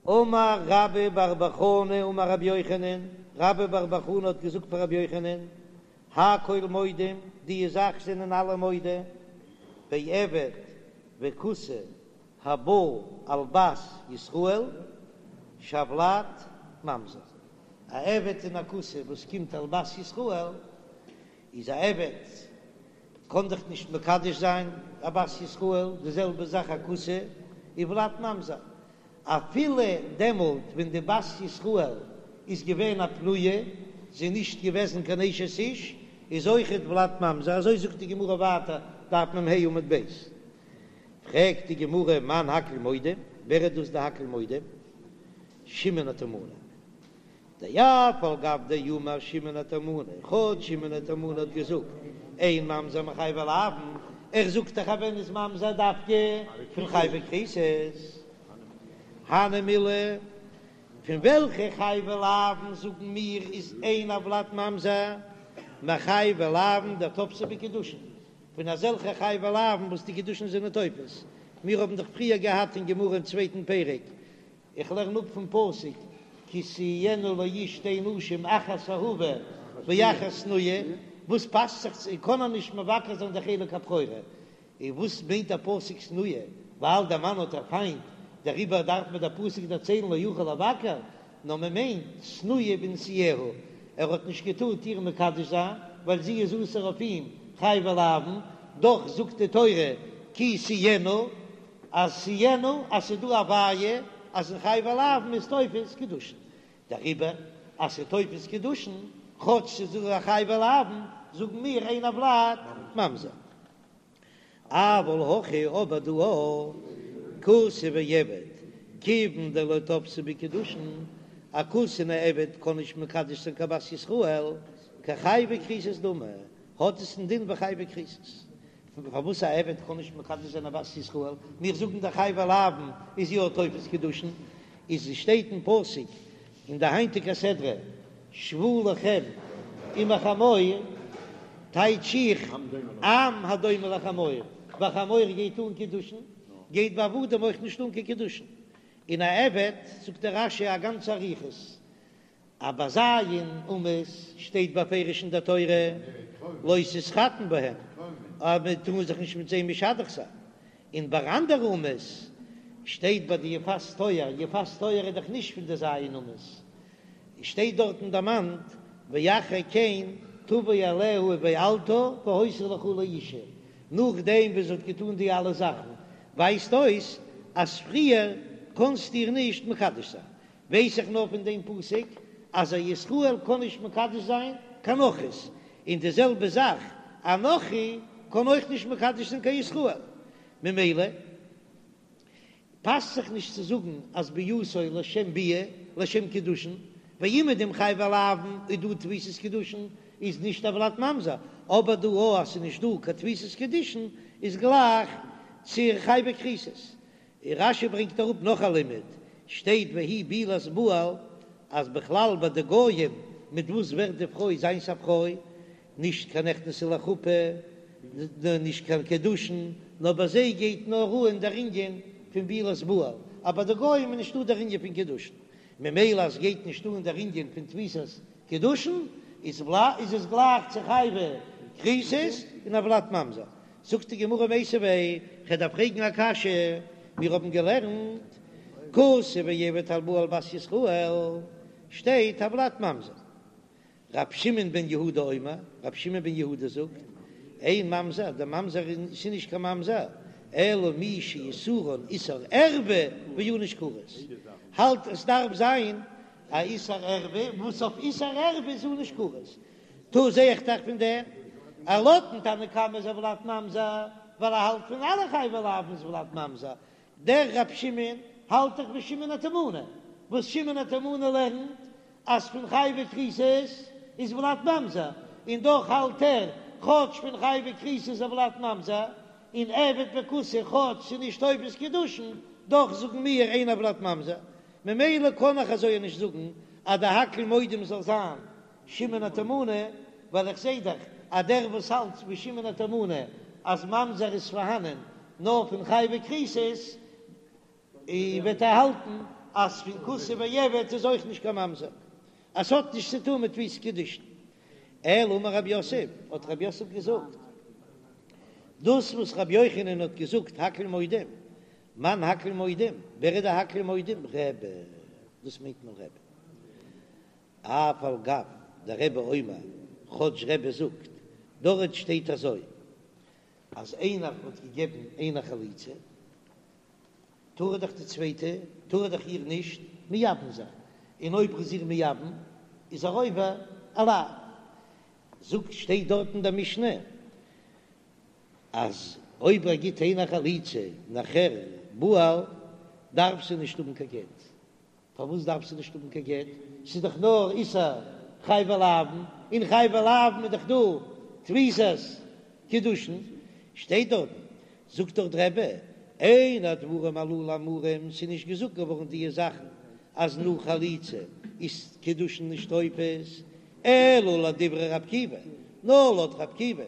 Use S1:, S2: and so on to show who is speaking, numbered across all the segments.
S1: אמר רבה בר בר חנה אמר רבי יוחנן, רבה בר בר חנה האט געזאגט פאר רבי יוחנן, הכל מודים, די זאך זענען אלע מודה, בעבד וכותי הבא על בת ישראל שהולד ממזר, א עבד און א כותי וואס קומט על בת ישראל, איז א עבד קען דאך נישט מקדש זיין א בת ישראל, די זעלבע זאך א כותי, איז ולד ממזר, אפילו דעמאלט ווען די בת ישראל איז געווען א פנויה, זי איז נישט געוועזן קיין אשת איש, איז אויכעט ולד ממזר, אזוי זאגט די גמרא ווייטער, דף מ"ה עמוד ב'. פרעגט די גמרא מאן הכל מודים, ווער איז דאס די הכל מודים? שמעון התימני. דאף על גב דאמר שמעון התימני, כאטש שמעון התימני האט געזאגט אין ממזר מחייבי לאוין, ער זאגט דאך אז ווען איז ממזר דווקא פון חייבי כריתות, הני מילי, פון וועלכע חייבי לאוין זאגן מיר איז אין הולד ממזר מחייבי לאוין דתפסי בהו קידושין, פון אזעלכע חייבי לאוין וואס די קידושין זענען תופס, מיר האבן דאך פריער געהאט אין גמרא אין צווייטן פרק איך לערן אפ פון פסוק כי תהיינה לאיש שתי נשים אחת אהובה ואחת שנואה, וואס פאסט זיך צו קען ער נישט מבקר זיין די חלק הבכורה, און וואס מיינט דער פסוק שנואה, ווייל דער מאן האט איר פיינט, דעריבער דארף מיר דער פסוק דערציילן לא יוכל לבקר, נאר מען מיינט שנואה בנישואיה, ער האט נישט געטארט איר מקדש זיין ווייל זי איז אסור אויף אים חייבי לאוין, דאך זאגט די תורה כי תהיינה. אז תהיינה אז ס'איז דא א בעיה אז אין חייבי לאוין איז תופס קידושין, דעריבער אז ס'איז תופס קידושין כאטש ס'איז דא א חייבי לאוין זאגן מיר אין הולד ממזר. אבל הכא אבער דא כותי ועבד כיוון דלא תפסי בהו קידושין, א כותי און א עבד קען נישט מקדש זיין קיין בת ישראל, כחייבי כריתות דמי, האט עס א דין ווי חייבי כריתות. פארוואס א עבד קען נישט מקדש זיין א בת ישראל, מיר זאגן דאך חייבי לאוין איז יא תופס קידושין, איז עס שטייט אין פסוק אין די היינטיגע סדרה שבו לכם עם החמור, טייטש איך עם הדומה לחמור, ביי חמור גייט אן קידושין, גייט ביי עבדים אויך נישט אן קיין קידושין, און א עבד זאגט דער רש"י א גאנצע אריכות. אז ביי ז' אומות שטייט בפירוש אין דער תורה לא תתחתן בהם, אז מען טאר זיך נישט מיט זיי משדך זיין, און ביי אנדערע אומות שטייט ביי די יפת תואר, יפת תואר איז דאך נישט פון די ז' אומות, שטייט דארטן דערמאנט ואחרי כן תבוא אליה ובעלתה והיתה לך לאשה, נאכדעם וואס זי האט געטאן די אלע זאכן, ווייזט אויס אז פריער קענסטו איר נישט מקדש זיין, ווייס איך נאר פון דעם פסוק אז א ישראל קען נישט מקדש זיין קיין נכרית, און די זעלבע זאך א נכרי קען אויך נישט מקדש זיין קיין ישראל, ממילא פאסט זיך נישט צו זאגן אז ביאתו לשם ביאה לשם קידושין, ווייל אומעדום חייבי לאוין איז דא תפיסת קידושין איז נישט הולד ממזר, אבער דא אז ס'איז נישט דא קיין תפיסת קידושין איז גלייך צו חייבי כריתות, און רש"י ברענגט אראפ נאך א לימוד, שטייט והיא בעולת בעל, אז בכלל ביי די גויים מיט וואס ווערט די פרוי זיינס א פרוי, נישט קיין נכנסה לחופה, נישט קיין קידושין, נאר ביי זיי גייט נאר אן דער ענין פון בעולת בעל, אבער ביי די גויים איז נישטא דער ענין פון קידושין, ממילא אז גייט נישט אן דער ענין פון תפיסת קידושין, איז עס גלייך צו חייבי כריתות און הולד ממזר. זאגט די גמרא מיתיבי, כ'דארף פרעגן א קשיא, מיר האבן געלערנט כותי ועבד הבא על בת ישראל, שטייט הולד ממזר. ר' שמעון בן יהודה אומר, ר' שמעון בן יהודה זאגט, אין ממזר, דער ממזר איז נישט קיין ממזר, אלא מי שאיסורן איסור ערווה וענוש כרת, האלט עס דארף זיין א איסור ערווה, וואס אויף איסור ערווה איז ענוש כרת, טא זע איך דאך פון דעם אז לויטן תנא קמא איז הולד ממזר, ווייל ער האלט פון אלע חייבי לאוין איז ולד ממזר, דער רב שמעון האלט דאך ווי שמעון התימני, וואס שמעון התימני לערנט אז פון חייבי כריתות איז ולד ממזר, און דאך האלט ער כאטש פון חייבי כריתות איז ולד ממזר, און עבד וכותי כאטש ס'איז נישט תופס קידושין, דאך זאגן מיר אין הולד ממזר, ממילא קען איך אזוי נישט זאגן אז די הכל מודים זאל זיין שמעון התימני, ווייל איך זעה דאך אז דער וואס האלט ווי שמעון התימני אז ממזר איז פארהאנען נאר פון חייבי כריתות, וועט ער האלטן. אז פון כותי ועבד איז אויך נישט קיין ממזר, אז ס'האט נישט צו טון מיט תפיסת קידושין. אלא אמר רב יוסף, האט רב יוסף געזאגט, דאס וואס רבי יוחנן האט געזאגט הכל מודים, מאן הכל מודים, ווער איז די הכל מודים? רבי, דאס מיינט מען רבי. אף על גב דרבי אומר, כאטש רבי זאגט, דארט שטייט אזוי, אז איינער האט געגעבן איינער חליצה, טאר ער דאך די צווייטע, טאר ער דאך איר נישט מייבם זיין, און אויב ער איז איר מייבם, איז ער עובר א לאו. זאגט, שטייט דארט אין דער משנה, אז אויב ער גיט איינער חליצה נאכער בעל, דארף זי נישט האבן קיין גט. פארוואס דארף זי נישט האבן קיין גט? ס'איז דאך נאר איסור חייבי לאוין, און חייבי לאוין איז דאך דא תפיסת קידושין, שטייט דארטן, זאגט דאך דער רבי, אין הדברים הללו אמורים, ס'איז נישט געזאגט געווארן דיע זאכן אז נאך חליצה איז קידושין נישט תופס, אלא לדברי רבי עקיבא, נאר לויט רבי עקיבא,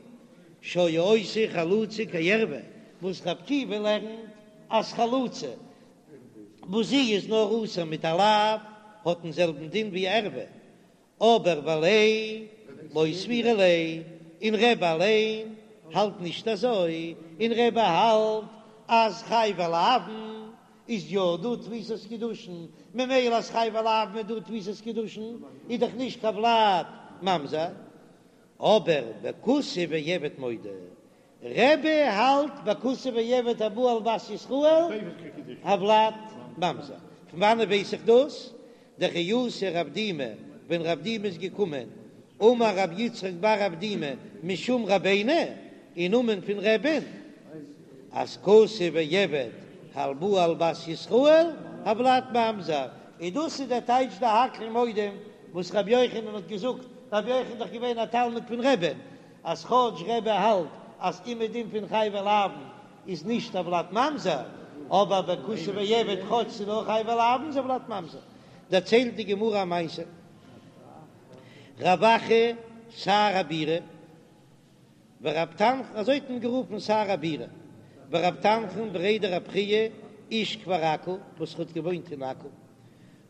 S1: שהיה עושה חלוצה כערוה, וואס רבי עקיבא לערנט אז חלוצה וואס זי איז נאר אסור מיט א לאו, האט דעם זעלבן דין ווי ערווה, אבער וליה לא סבירא ליה, און רבי אליין האלט נישט אזוי, און רבי האלט אז חייבי לאוין איז יא דא תפיסת קידושין, ממילא אז חייבי לאוין איז דא תפיסת קידושין איז דאך נישט קיין ולד ממזר, אבער בכותי ועבד מודה, רבי האלט בכותי ועבד הבא על בת ישראל הולד ממזר. פון וואנעט ווייס איך דאס? דכי אתא רב דימי, ווען רב דימי איז געקומען, אמר רב יצחק בר אבדימי משום רבינו, אין נאמען פון רבי'ן, אז כותי ועבד הבא על בת ישראל הולד ממזר, און דאס איז דער טייטש די הכל מודים וואס רבי יוחנן האט געזאגט, רבי יוחנן איז דאך געווען א תלמיד פון רבי'ן, אז כאטש רבי האלט אז אומעדום פון חייבי לאוין איז נישט הולד ממזר, אבער ביי כותי ועבד כאטש ס'איז נאר חייבי לאוין איז הולד ממזר. דערציילט די גמרא א מעשה, רב אחא שר הבירה ורב תנחום, אזוי האט מען גערופן שר הבירה, ורב תנחום בריה דרב חייא איש כפר עכו וואס האט געוואוינט אין עכו,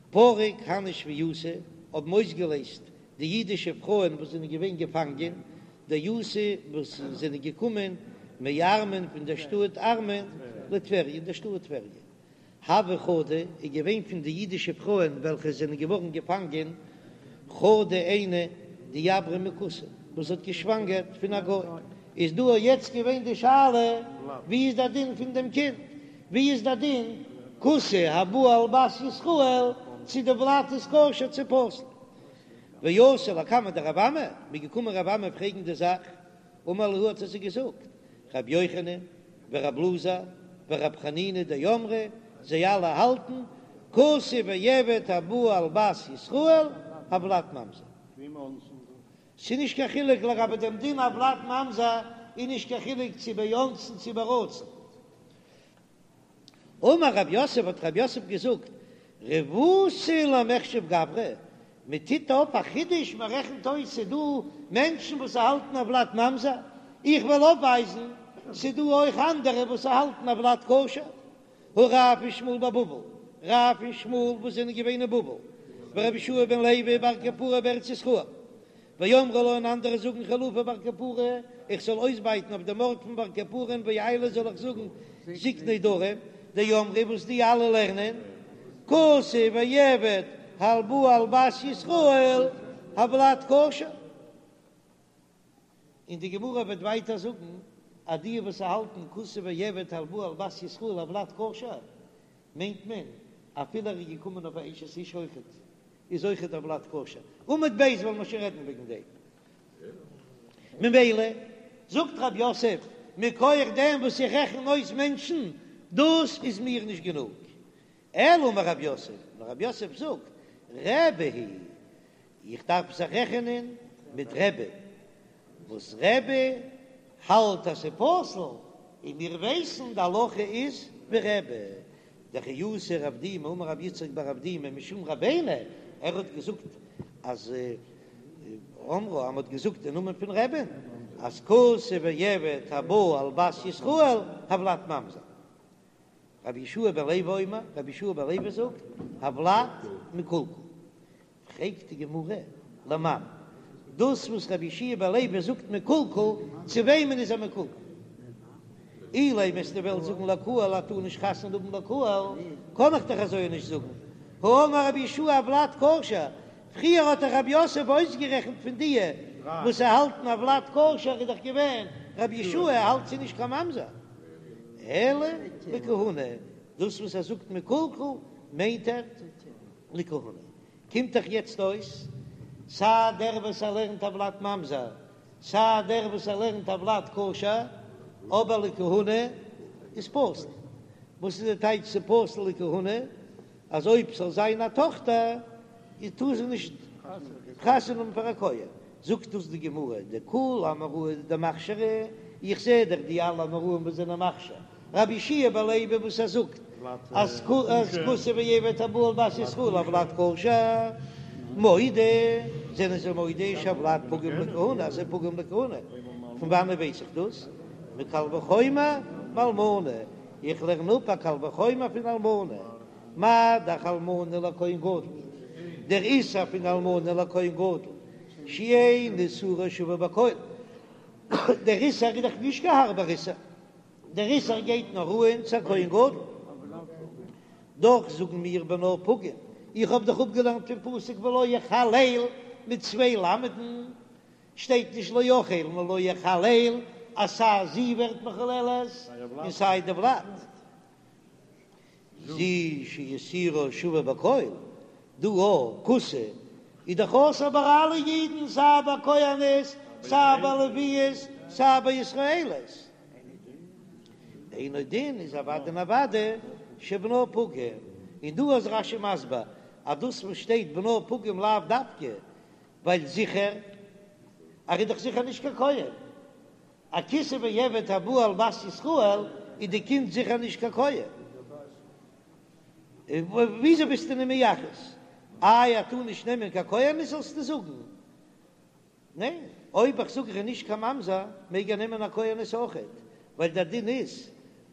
S1: פרק הני שבייתא האבן אויסגעלייזט די אידישע פרויען וואס זענען געווען געפאנגען, דאתו וואס זענען געקומען מארמון פון דער שטאט ארמון לטבריה אין דער שטאט טבריה. הוה חדא איז געווען פון די אידישע פרויען וועלכע זענען געווארן געפאנגען, חדא איינע דעברה מכותי וואס האט געשוואנגערט פון א גוי, איז דא יעצט געווען די שאלה ווי איז דער דין פון דעם קינד, ווי איז דער דין כותי הבא על בת ישראל צו די ולד איז כשר צו פסול. ואתו לקמיה דרב אמי, מ'איז געקומען רב אמי פרעגן די זאך, אמר להו האט ער זיי געזאגט, רבי יוחנן ורב אלעזר ורב חנינא דאמרי, זיי אלע האלטן, כותי ועבד הבא על בת ישראל, הולד ממזר. ס'איז נישט קיין חילוק לגבי דעם דין הולד ממזר, איז נישט קיין חילוק צו באונסין צו ברצון. אמר רב יוסף האט רב יוסף געזאגט, רבותא למיחשב גברי, מען טוט אויף א חידוש, מען רעכנט אויס ס'איז דא מענטשן וואס האלטן הולד ממזר, איך וועל אויפווייזן ס'איז דא אויך אנדערע וואס האלטן הולד כשר, הא רב ושמואל בבבל, רב און שמואל וואס זענען געווען אין בבל, ורבי יהושע בן לוי ובר קפרא בארץ ישראל, ואמרי לה און אנדערע זאגן חילופי בר קפרא, איך זאל אויסבייטן אויף דעם ארט פון בר קפרא ואיילי זאל איך זאגן זקני דרום, דאמרי וואס די אלע לערנען, כותי ועבד הבא על בת ישראל הולד כשר. און די גמרא וועט ווייטער זאגן אז די וואס האלטן כותי ועבד הבא על בת ישראל הולד כשר מיינט מען אפילו ער איז געקומען אויף א אשת איש אויכעט איז אויכעט הולד כשר, עמוד ב' וועלן מיר שוין רעדן וועגן דעם. ממילא זאגט רב יוסף מכח דעם וואס איך רעכן אויס מענטשן דאס איז מיר נישט גענוג, אלא אמר רב יוסף, נאר רב יוסף זאגט רבי היא איך דארף זיך רעכענען מיט רבי, וואס רבי האלט אז ס'איז פסול, און מיר ווייסן די הלכה איז ווי רבי, דכי אתא רב דימי אמר רב יצחק בר אבדימי משום רבינו, ער האט געזאגט אז אמרו אז מ'האט געזאגט אין נאמען פון רבי'ן אז כותי ועבד הבא על בת ישראל הולד ממזר. רבי יהושע בן לוי אומר, רבי יהושע בן לוי זאגט, הולד מקולקל. פרעגט די גמרא, למאן, דאס וואס רבי יהושע בן לוי זאגט מקולקל, צו וועמען איז ער מקולקל? אילימא וועסטו וועלן זאגן לקהל ער טאר נישט חתונה האבן לקהל, קען איך דאך אזוי נישט זאגן, האמר רבי יהושע הולד כשר, פריער האט דאך רב יוסף אויסגערעכנט פון דיע וואס האלטן הולד כשר איז דאך געווען רבי יהושע האלט ס'איז נישט קיין ממזר, אלא לכהונה, דאס וואס ער זאגט מקולקל מיינט ער לכהונה. קומט דאך יעצט אויס סיי דער וואס ער לערנט הולד ממזר, סיי דער וואס ער לערנט הולד כשר, אבער לכהונה איז פסול. וואס איז די טייטש ס'פסול לכהונה? אז אויב ס'זאל זיין א טאכטער איז טאר זי נישט חתונה האבן פאר א כהן. זאגט דאס די גמרא, דכול אמוראי דמכשרי, איך זע דאך די אלע אמוראים וואס זענען מכשיר, רבי יהושע בן לוי וואס ער זאגט אז כותי ועבד הבא על בת ישראל הולד כשר, מודה, זענען זיי מודה שהולד פגום לכהונה אז ס'איז פגום לכהונה, פון וואנעט ווייס איך דאס? מקל וחומר מאלמנה, איך לערן אפ א קל וחומר פון אלמנה, מה דאך אלמנה לכהן גדול, דער איסור פון אלמנה לכהן גדול שאין איסורה שווה בכל, דער איסור איז דאך נישט קיין הארבער איסור, דער איסור גייט נאר אן צו א כהן גדול, דאך זאגן מיר בנה פגום, איך האב דאך אפגעלערנט פון פסוק ולא יחלל מיט צוויי למד'ן, שטייט נישט לא יחל נאר לא יחלל, אז סיי זי ווערט מחוללת און סיי די ולד. זו שאיסורה שווה בכל, דא א כותי איז דאך אסור ביי אלע אידן סיי ביי כהנות סיי ביי לוויות סיי ביי ישראלית, אינו דין איז אוודאי און אוודאי שבנה פגום, און דא איז רש"י מסביר אז דאס וואס שטייט בנה פגום לאו דווקא ווייל זיכער ער איז דאך זיכער נישט קיין כהן, א כותי ועבד הבא על בת ישראל איז די קינד זיכער נישט קיין כהן. וויאזוי ביסטו אים מייחס? איי ער טאר נישט נעמען קיין כהנת זאלסטו זאגן? ניין, אויב איך זאג ער איז נישט קיין ממזר מעג ער נעמען א כהנת אויכעט, ווייל דער דין איז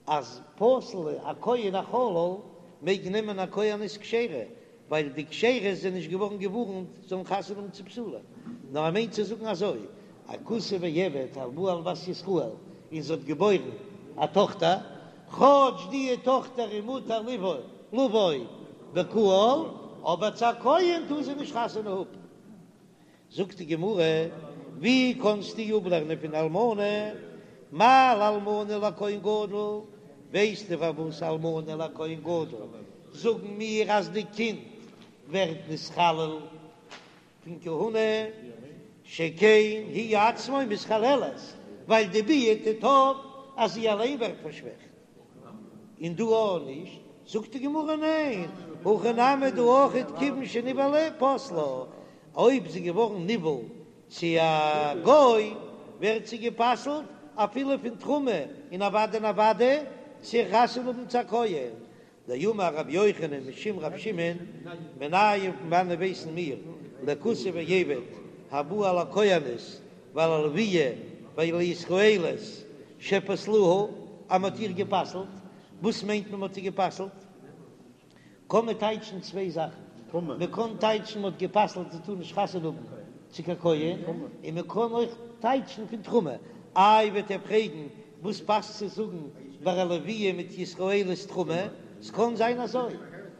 S1: אז פסול א כהן א חלל מעג נעמען א כהנת כשרה, ווייל די כשרות זענען נישט געווארן געווארנט זאלן חתונה האבן צו פסולים, נאר ער מיינט צו זאגן אזוי, א כותי ועבד הבא על בת ישראל און זי האט געבוירן א טאכטער, כאטש די טאכטער איז מותר לבוא לבוא בקהל, אבער צו א כהן טאר זי נישט חתונה האבן. זאגט די גמרא, ווי קענסטו אפלערנען פון אלמנה, מה לאלמנה לכהן גדול, ווייסטו פארוואס אלמנה לכהן גדול זאגן מיר אז די קינד ווערט נתחלל פון כהונה, שכן היא עצמה מתחללת, ווייל די ביאה טוט אויף אז זי אליין ווערט פארשוועכט. און דא אויך נישט? זאגט די גמרא ניין, הכא נמי דא אויכעט כיוון שנבעלה פסלה, אויב זי געווארן נבעל צו א גוי ווערט זי גע'פסל'ט אפילו פון תרומה און אוודאי און אוודאי צו חתונה האבן צו א כהן, דאמר רבי יוחנן משום רבי שמעון, מנין פון וואנען ווייסן מיר לכותי ועבד הבא על הכהנת ועל הלוויה ועל הישראלית שפסלוה, אז מ'האט איר גע'פסל'ט, וואס מיינט מען מ'האט איר גע'פסל'ט? קען מען טייטשן צוויי זאכן, מ'קען טייטשן מ'האט גע'פסל'ט זי טאר נישט חתונה האבן צו קיין כהן, און מ'קען אויך טייטשן פון תרומה. איי וועט איר פרעגן וואס פאסט צו זאגן ביי א לוויה מיט ישראלית תרומה? ס'קען זיין אזוי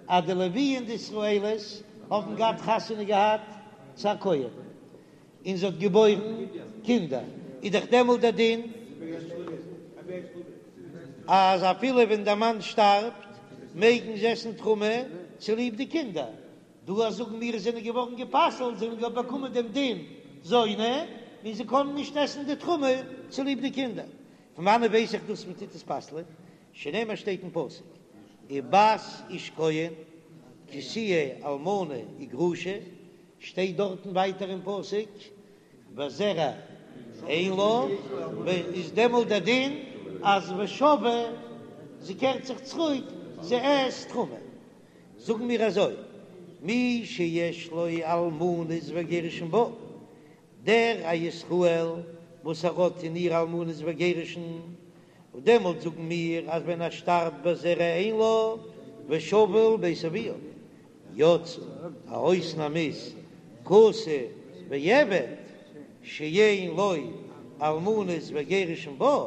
S1: אז די לוויה און די ישראלית האבן געהאט חתונה געהאט צו א כהן, און זי האט געבוירן קינדער, איז דאך דעמאלט דער דין אז אפילו ווען דער מאן שטארבט מעגן זיי עסן תרומה צוליב די קינדער, דא אז זאגן מיר זיי זענען געווארן גע'פסל'ט, זיי האבן געהאט באקומען דעם דין זונה, און זיי קענען נישט עסן די תרומה צוליב די קינדער. פון וואנעט ווייס איך דאס מען טוט עס פסל'ען? שנאמר שטייט אין פסוק ובת איש כהן כי תהיה אלמנה וגרושה, שטייט דארטן ווייטער אין פסוק וזרע אין לה, איז דעמאלט דער דין אז ושבה זי קערט זיך צוריק זי עסט תרומה, זאגן מיר אזוי מי שיש לו אלמנות וגירושין בה, דער א ישראל וואס ער האט אין איר אלמנות וגירושין. דעמאלט זאגן מיר אז ווען ער שטארבט בזרע אין לה ושבה אל בית אביה, יצא א אויסנאם איז כותי ועבד שאין לו אלמנות וגירושין בה,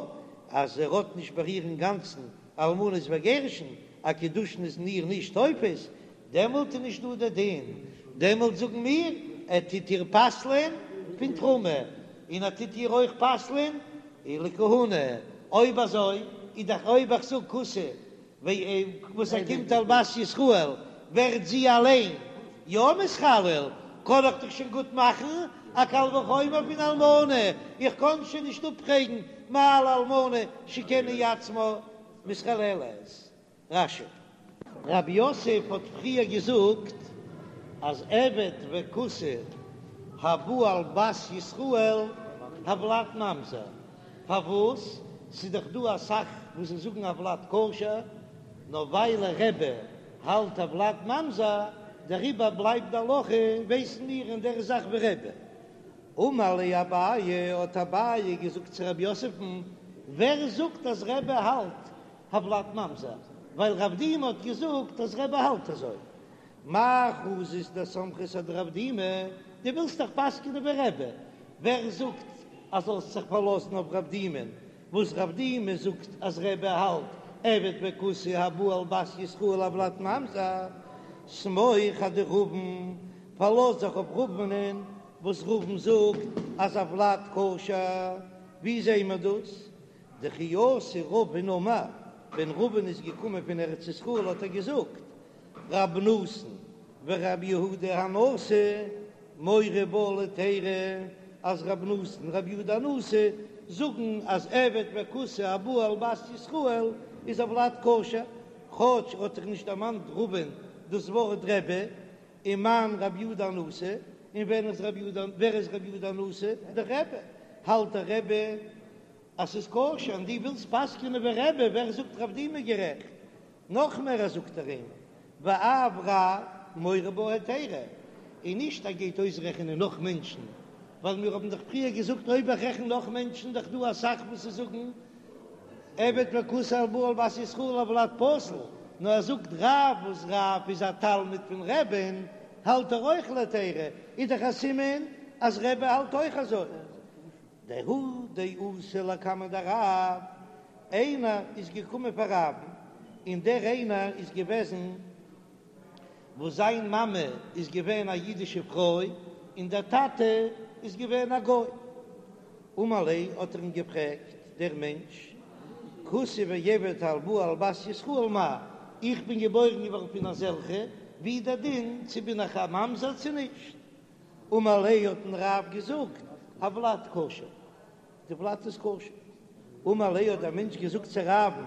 S1: אז ער האט נישט ביי איר אינגאנצן אלמנות וגירושין, א קידושין איז אין איר נישט תופס, דעמאלט איז נישט דא דער דין, דעמאלט זאגן מיר ער טוט איר פסל'ען פון תרומה, און ער טוט איר אויך פסל'ען לכהונה, אויב אזוי איז דאך אויב איך זאג כותי וואס ער קומט על בת ישראל ווערט זי אליין יא מתחלל, קען איך דאך שוין גוט מאכן א קל וחומר פון אלמנה, איך קען שוין נישט אפפרעגן מה לאלמנה שכן היא עצמה מתחללת. רש"י. רב יוסף האט פריער געזאגט אז עבד וכותי הבא על בת ישראל הולד ממזר, פארוואס? ס'איז דאך דא אסאך וואס זיי זאגן הולד כשר, נאר ווייל רבי האלט הולד ממזר, דעריבער בלייבט די הלכה, ווייסן מיר אין דער זאך ווי רבי. אמר ליה אביי, האט אביי געזאגט צו רב יוסף'ן, ווער זאגט אז רבי האלט הולד ממזר, ווייל רב דימי האט געזאגט אז רבי האלט אזוי. מאי חזית דסמכת אדרב דימי, דו ווילסט דאך פסק'נען ווי רבי, ווער זאגט אז זאלסט זיך פארלאזן אויף רב דימי'ן, וואס רב דימי זאגט אז רבי האלט עבד וכותי הבא על בת ישראל הולד ממזר, סמוך אדרבין, פארלאז זיך אויף רבינ'ען וואס רבין זאגט אז הולד כשר, ווי זעהן מיר דאס? דכי אתא רבין אמר, ווען רבין איז געקומען פון ארץ ישראל האט ער געזאגט, רב נתן ורב יהודה הנשיא מורי בה להיתירא, אז רב נתן און רב יהודה הנשיא זאגן אז עבד וכותי הבא על בת ישראל איז הולד כשר, כאטש האט זיך נישט דערמאנט רבין דאס ווארט רבי, ומאן רב יהודה הנשיא, און ווען איז רב יהודה, ווער איז רב יהודה הנשיא? דער רבי, האלט דער רבי אז ס'איז כשר און דו ווילסט פסק'נען ווי רבי, ווער זאגט רב דימי גערעכט? נאך מער ער זאגט ער אים ואף רב מורה בה היתירא, און נישט ער גייט אויסרעכענען נאך מענטשן, ווייל מיר האבן דאך פריער געזאגט אויב איך רעכן נאך מענטשן דאך דא אסאך וואס זיי זאגן עבד וכותי הבא על בת ישראל הולד פסול, נאר ער זאגט רב וואס רב איז א תלמיד פון רבי'ן האלט ער אויך להיתירא, איז דאך א סימן אז רבי האלט אויך אזוי. דההוא דאתא לקמיה דרב, איינער איז געקומען פאר רב'ן, און דער איינער איז געוועזן וואס זיין מאמע איז געווען א אידישע פרוי און דער טאטע איז געווען א גוי. אמר ליה האט ער אים געפרעגט, דער מענטש, כותי ועבד הבא על בת ישראל מהו, איך בין געבוירן געווארן פון אזעלכע, ווי איז דער דין צו בין איך א ממזר צו נישט? אמר ליה האט אים רב געזאגט, הולד כשר, די ולד איז כשר. אמר ליה האט דער מענטש געזאגט צו רב'ן,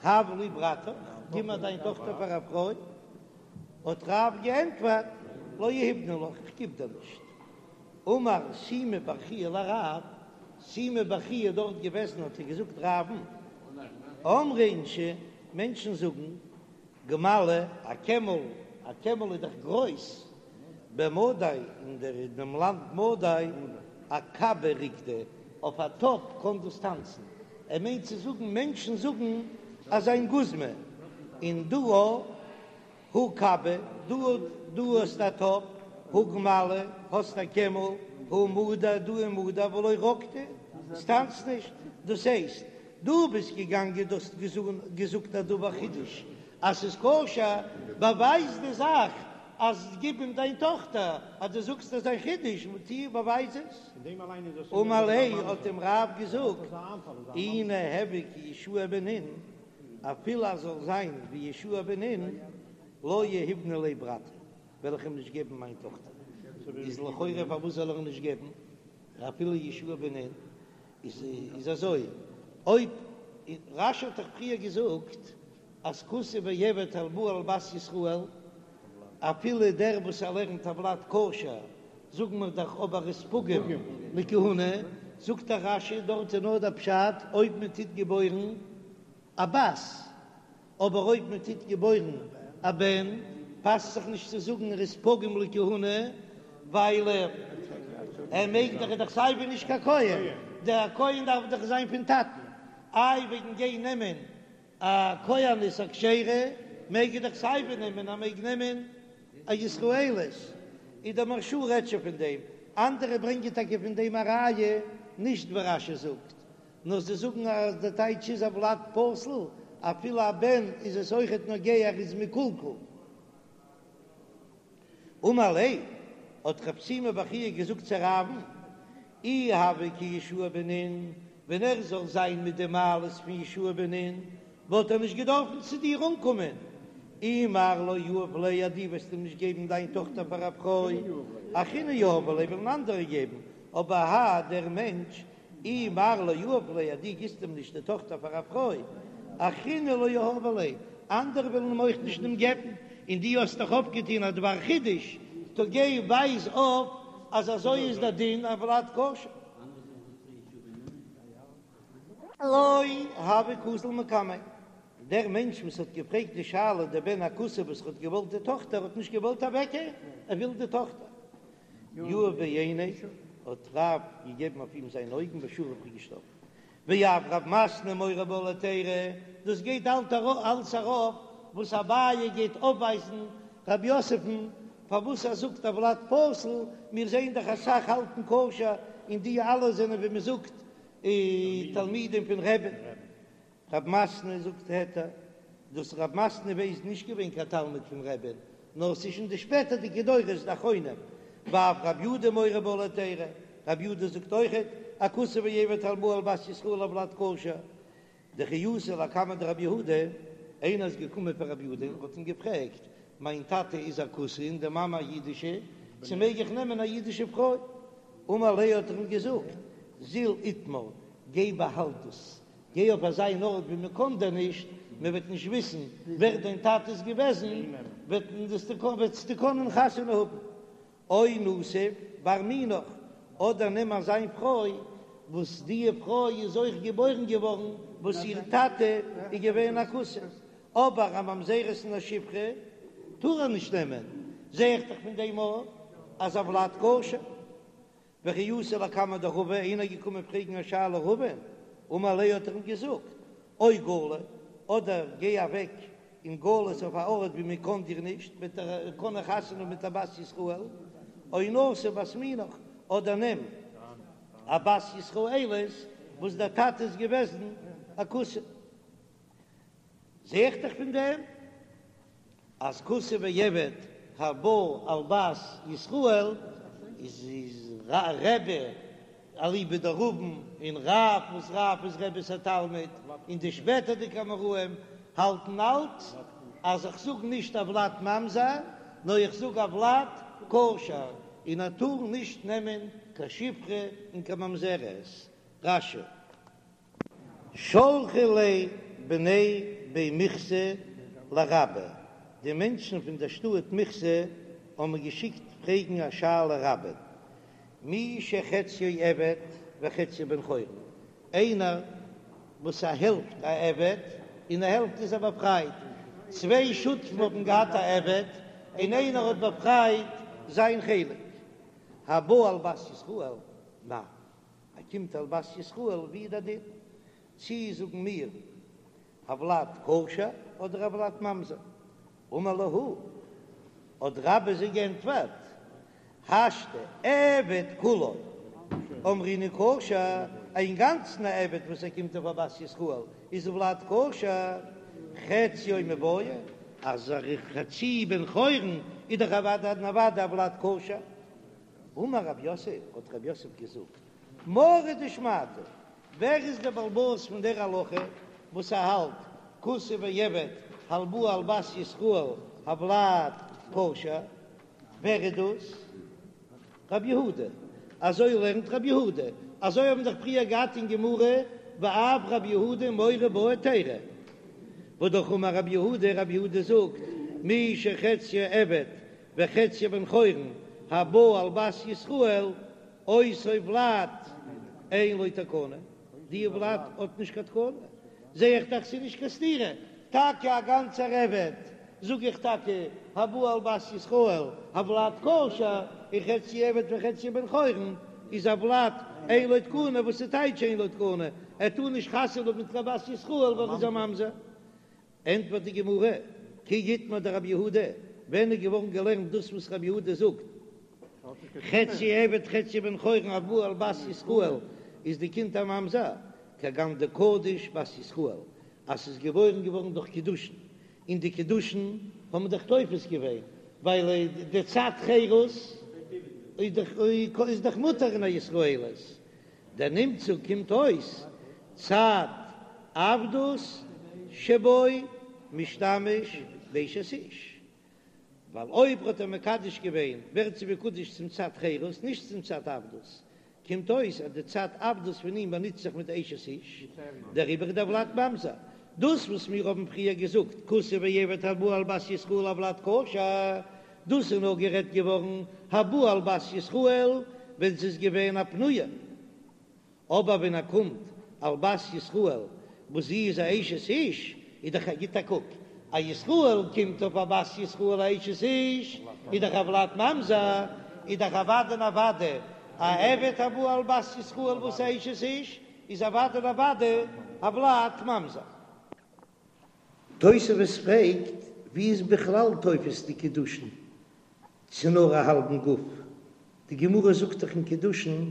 S1: הב לי ברתך, גיב מיר דיין טאכטער פאר א פרוי. האט רב געענטפערט, לא יהיבנא לך, איך גיב דיר נישט. אמר שימי בר חייא לרב, שימי בר חייא איז דארט געוועזן האט ער געזאגט רב'ן, אמרי אינשי, מענטשן זאגן, גמלא, א קעמל, א קעמל איז דאך גרויס, במדי, אין דער אין דעם לאנד מדי, אכבא רקדי, אויף א טאפ קען דאס טאנצן, ער מיינט צו זאגן מענטשן זאגן אז זיין גוזמא, און דא הא כבא, דא דא האסט א טאפ, הא גמלא, האסט א קעמל, הא מדי, דא איז מדי, ולא רקדי, עס טאנצט נישט, דאס הייסט, דו ביסט געגאנגען דו האסט געזאגט א דבר חידוש אז ס'איז כשר, באווייז די זאך אז גיב אים דיין טאכטער, אז דו זאגסט אז זיין חידוש טו באווייז עס. אמר ליה האט אים רב געזאגט, אי ניהוי כיהושע בן נון, אפילו אז זאל זיין ווי יהושע בן נון, לא יהיבנא ליה ברתי, וועל איך אים נישט געבן מיין טאכטער. איז לכאורה פארוואס זאל ער אים נישט געבן אפילו יהושע בן נון? איז אזוי, אויב רש"י האט דאך פריער געזאגט אז כותי ועבד הבא על בת ישראל, אפילו דער וואס ער לערנט הולד כשר, זאגן מיר דאך אבער איז פגום לכהונה, זאגט דער רש"י דארט איז נאר דער פשט אויב מען טוט געבוירן א בת, אבער אויב מען טוט געבוירן א בן, פאסט זיך נישט צו זאגן ער איז פגום לכהונה, ווייל ער מעג דאך, ער איז דאך סייווי נישט קיין כהן, דער כהן דארף דאך זיין פון טאטן. איי וועגן גיין נעמען א כהנת א כשרה מעג ער דאך סייווי נעמען, ער מעג נעמען א ישראלית, איז דער מהרש"א רעדט שוין פון דעם, אנדערע ברענגען טאקע פון דעם א ראיה, נישט ווי רש"י זאגט, נאר זיי זאגן אז די טייטש איז הולד פסול, אפילו א בן איז עס אויכעט נוגע ער איז מקולקל. אמר ליה, האט רב שימי בר חייא געזאגט צו רב'ן, אי הוה כיהושע בן נון, ווען ער זאל זיין מיט די מעלות פון יהושע בן נון, וואלט ער נישט געדארפן צו דיר אנקומען, אי מר לא יהיב ליה אז דו וועסט אים נישט געבן דיין טאכטער פאר א פרוי, אחריני יהבי ליה וועלן אנדערע געבן, אבער האי דער מענטש אי מר לא יהיב ליה אז דו גיבסט אים נישט די טאכטער פאר א פרוי, אחריני לא יהבי ליה, אנדערע וועלן אים אויך נישט אים געבן, און דו האסט דאך אויפגעטון א דבר חידוש, טא גיי ווייז אויף אז אזוי איז דער דין הולד כשר. לא הוה קאזיל מקמיה, דער מענטש וואס האט געפרעגט די שאלה, דער בן הכותי וואס האט געוואלט די טאכטער האט נישט געוואלט אוועקגיין, ער וויל די טאכטער. יהב ביה עיניה, האט רב געגעבן אויף אים זיינע אויגן ושכיב איז געשטארבן. ואף רב מתנה מורה בה להיתירא, דאס גייט אלץ ארויף וואס אביי גייט אויפווייזן רב יוסף'ן פארוואס ער זאגט הולד פסול, מיר זעען דאך אסאך האלטן כשר און די אלע זענען ווי מען זאגט תלמידים פון רבי'ן. רב מתנה זאגט היתר, דאס רב מתנה איז נישט געווען קיין תלמיד פון רבי'ן, נאר ס'איז שוין די שפעטערדיגע דורות די אחרונים, ואף רב יהודה מורה בה להיתירא, רב יהודה זאגט אויכעט, א כותי ועבד הבא על בת ישראל הולד כשר, דכי אתא לקמיה דרב יהודה, איינער איז געקומען פאר רב יהודה און האט אים געפרעגט, מיין טאטע איז א כותי און די מאמע א אידישע, צו מעג איך נעמען א אידישע פרוי? אמר ליה האט ער אים געזאגט, זיל איטמר, גיי באהאלט דאס, גיי אויף אזא אן ארט ווי מען קען דיר נישט, מען וועט נישט וויסן ווער דיין טאטע איז געוועזן, וועסטו קענען חתונה האבן. או נסיב בר מינך, אדער נעם אזא פרוי וואס די פרוי איז אויך געבוירן געווארן וואס איר טאטע איז געווען א כותי, אבער א ממזרת און א שפחה טאר ער נישט נעמען, זע איך דאך פון דעם אויך אז הולד כשר. וכי אתא לקמיה דרבא, איינער איז געקומען פרעגן א שאלה רבא'ן, אמר ליה האט ער אים געזאגט, או גלי, אדער גיי אוועק אין גלות אויף א ארט ווי מען קען דיר נישט, וועט ער קענען חתונה האבן מיט א בת ישראל, או נסיב בת מינך, אדער נעם א בת ישראלית וואס דער טאטע איז געוועזן א כותי. זע איך דאך פון דעם אז כותי ועבד הבא על בת ישראל איז איז רבי אליבא דרבין און רב וואס רב איז רבי'ס א תלמיד און די שפעטערדיגע אמוראים האלטן אלץ אז איך זאג נישט הולד ממזר נאר איך זאג הולד כשר און ער טאר נישט נעמען קיין שפחה און קיין ממזרת. רש"י. שלחו ליה בני בי מיכסי לרבה, די מענטשן פון דער שטאט מיכסי האבן געשיקט פרעגן א שאלה רבה'ן, מי שחציו עבד וחציו בן חורין, איינער וואס א העלפט א עבד און א העלפט איז ער באפרייט, צוויי שותפים האבן געהאט א עבד און איינער האט באפרייט זיין חלק, הבא על בת ישראל, מהו. ער קומט על בת ישראל ווי איז דער דין? צי זאגן מיר הולד כשר אדער הולד ממזר? אמר להו, האט רבה זיי גענטפערט, השתא עבד כולו אמרינן כשר, אינגאנצן א עבד וואס ער קומט אויף א בת ישראל איז הולד כשר, חציו מיבעיא, אז ער איז חצי בן חורין איז דאך אוודאי און אוודאי הולד כשר. אמר רב יוסף, האט רב יוסף געזאגט, מרא דשמעתא, ווער איז דער בעל הבית פון דער הלכה וואס ער האלט כותי ועבד הבא על בת ישראל הולד כשר, ווער איז דאס? רב יהודה, אזוי לערנט רב יהודה, אזוי האבן דאך פריער געהאט אין גמרא ואף רב יהודה מורה בה היתירא, והא אמר רב יהודה, רב יהודה זאגט מי שחציו עבד וחציו בן חורין הבא על בת ישראל אותו ולד אין לו תקנה, די ולד האט נישט קיין תקנה, זע איך דאך ס'איז נישט קיין סתירה, טאקע א גאנצער עבד זאג איך טאקע הבא על בת ישראל הולד כשר און חצי עבד וחצי בן חורין איז הולד אין לו תקנה, וואס איז טייטש אין לו תקנה? ער טאר נישט חתונה האבן מיט קיין בת ישראל ווייל ער איז א ממזר. ענטפערט די גמרא, כי איתמר דרבי יהודה, ווען איז געווארן געלערנט דאס וואס רבי יהודה זאגט, חצי עבד חצי בן חורין הבא על בת ישראל איז די קינד א ממזר, כגון דקדיש בת ישראל, אז ס'איז געבוירן געווארן דורך קידושין, און די קידושין האבן דאך תופס געווען, ווייל די צד חירות איז דאך מותר אין א ישראלית, דנמצא קומט אויס צד עבדות שבו משתמש באשת איש, ווייל אויב האט ער מקדש געווען ווערט זי מקודש צום צד חירות נישט צום צד עבדות, קומט אויס אז די צד עבדות פון אים באנוצט זיך מיט אשת איש, דעריבער איז דער ולד ממזר. דאס וואס מיר האבן פריער געזאגט כותי ועבד הבא על בת ישראל הולד כשר, דאס איז נאר גערעדט געווארן הבא על בת ישראל ווען ס'איז געווען א פנויה, אבער ווען ער קומט על בת ישראל וואס זי איז א אשת איש, איז דאך א גיט א קוק, א ישראל קומט אויף א בת ישראל א אשת איש, איז דאך הולד ממזר, איז דאך אוודאי און אוודאי א עבד הבא על בת ישראל וואס איז א אשת איש, איז אוודאי און אוודאי הולד ממזר. תוספות פרעגט, ווי איז בכלל תופס די קידושין צו נאר א האלבן גוף? די גמרא זאגט דאך אין קידושין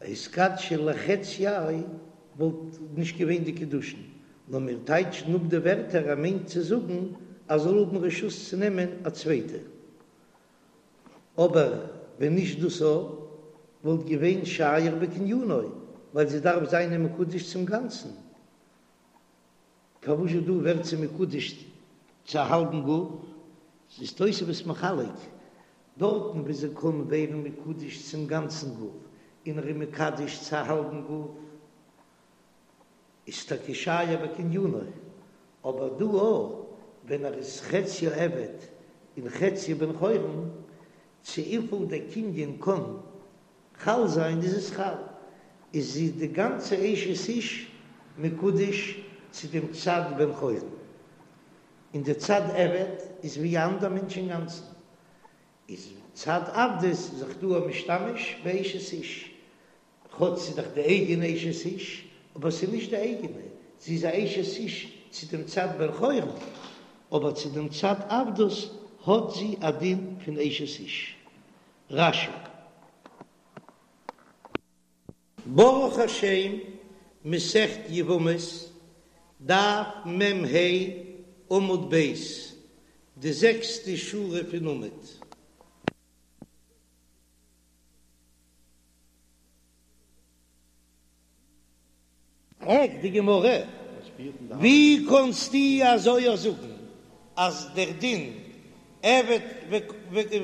S1: התקדשי לחציה וואלט נישט געווען די קידושין, נאר מיר טייטשן אפ די ווערטער ער מיינט צו זאגן אז זאל האבן רשות צו נעמען א צווייטע, אבער ווען נישט דאס א וואלט געווען שייר בקנינו ווייל זי דארף זיין מקודש צום גאנצן. פארוואס דא ווערט זי מקודש צו א האלבן גוף? איז תוספות מחלק, דארטן וואו זי קען ווערן מקודש צום גאנצן גוף, און ער איז מקדש צו א האלבן גוף, איז טאקע שייר בקנינו, אבער דא אויך ווען ער איז חציו עבד און חציו בן חורין, צו וויפיל דער קנין קען חל זיין איז עס חל, איז זי די גאנצע אשת איש מקודש צו דעם צד בן חורין, און די צד עבד איז ווי א אנדער מענטש אינגאנצן, איז צד עבדות זיך דא א משתמש באשת איש, כאטש ס'איז דאך די אייגענע אשת איש, אבער ס'איז נישט די אייגענע, זי איז א אשת איש צו דעם צד בן חורין, אבער צו דעם צד עבדות האט זי א דין פון אשת איש. רש"י. ברוך השם, מסכת יבמות, דף מ"ה, עמוד ב', די זעקסטע שורה פון עמוד. פרעגט די גמרא, ווי קאנסטו אזוי אויך זאגן אז דער דין עבד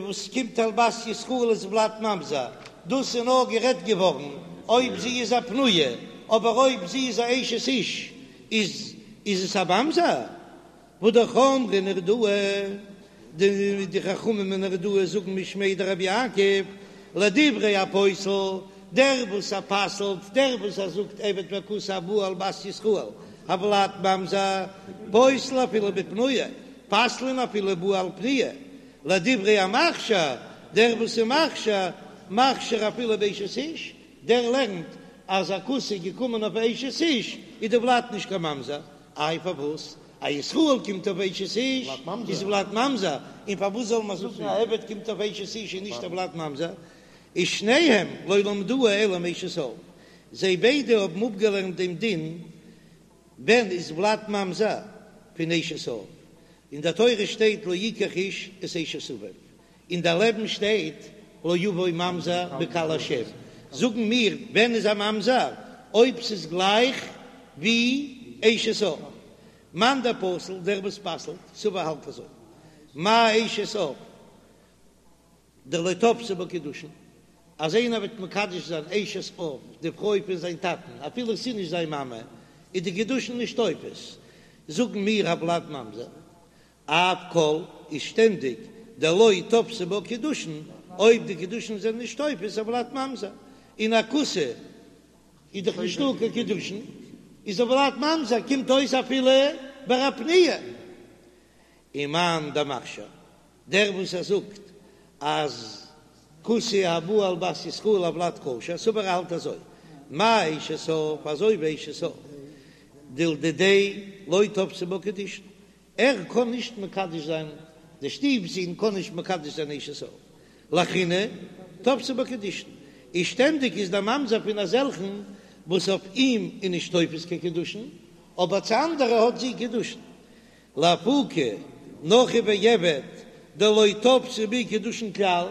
S1: וואס קומט על בת ישראל איז ולד ממזר, דאס איז נאר גערעדט געווארן אויב זי איז א פנויה, אבער אויב זי איז א אשת איש איז איז עס א ממזר? והא אמרי נהרדעא, די חכמים אין נהרדעא זאגן משמיה דרבי יעקב, לדברי הפוסל, דער וואס ער פסל'ט, דער וואס ער זאגט עבד וכותי הבא על בת ישראל, הולד ממזר, פוסל אפילו בפנויה, פסל'ן אפילו בא על פנויה, לדברי המכשיר, דער וואס איז מכשיר, מכשיר אפילו באשת איש, דער לערנט אז א כותי איז געקומען אויף אשת איש, איז די ולד נישט קיין ממזר, איי פארוואס א ישראל קומט אויף אשת איש איז ולד ממזר, און פארוואס זאל מען זאגן א עבד קומט אויף אשת איש איז נישט א ולד ממזר? איז שניהם לא למדוה אלא מאשת אב, זיי ביידע האבן אפגעלערנט דעם דין ווען איז ולד ממזר פון אשת אב, אין דער תורה שטייט לא יקח איש את אשת אביו, און דערלעבן שטייט לא יבוא ממזר בקהל השם, זאגן מיר ווען איז א ממזר אויב ס'איז גלייך ווי אשת אב, מאן דפסיל דער וואס פסל'ט סבר האלט אזוי, מה אשת אב דלא תפסי בה קידושין, אז איינער וועט מקדש זיין אשת אב די פרוי פון זיין טאטן אפילו ס'איז נישט זיין מאמע איז די קידושין נישט תופס, זאגן מיר הולד ממזר אף כל איז שטענדיג דלא תפסי בה קידושין, אויב די קידושין זענען נישט תופס הולד ממזר, און א כותי איז דאך נישטא קיין קידושין, איז הולד ממזר קומט אויס אפילו ביי א פנויה. ומאן דמכשיר, דער וואס ער זאגט אז כותי הבא על בת ישראל הולד כשר, סבר האלט אזוי. מה אשת אב, אזוי ווי אשת אב, דלדידיה לא תפסי בה קידושין, ער קען נישט מקדש זיין, די שטיף זון קען נישט מקדש זיין אשת אב, לאחריני תפסי בה קידושין, איז שטענדיג איז דער ממזר פון אזעלכן וואס אויף אים איז נישט תופס קיין קידושין, אבער צו אנדערע האט זי קידושין. לאפוקי נכרי ועבד דלא תפסי בהו קידושין כלל,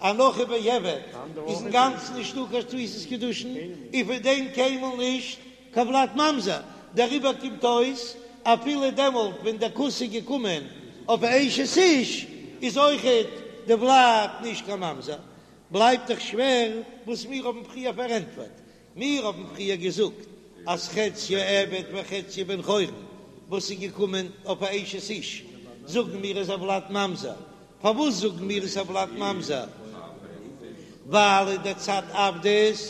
S1: א נכרי ועבד איז אינגאנצן נישטא קיין תפיסת קידושין, און פון דעם קיינמאל נישט קיין ולד ממזר, דעריבער קומט אויס אפילו דעמאלט ווען דער כותי איז געקומען אויף אשת איש איז אויכעט די ולד נישט קיין ממזר, בלייבט דאך שווער וואס מיר האבן פריער פארענטפערט, מיר האבן פריער געזאגט אז חציו עבד וחציו בן חורין וואס איז געקומען אויף א אשת איש זאגן מיר איז הולד ממזר, פארוואס זאגן מיר איז הולד ממזר? ווייל אין די צד עבדות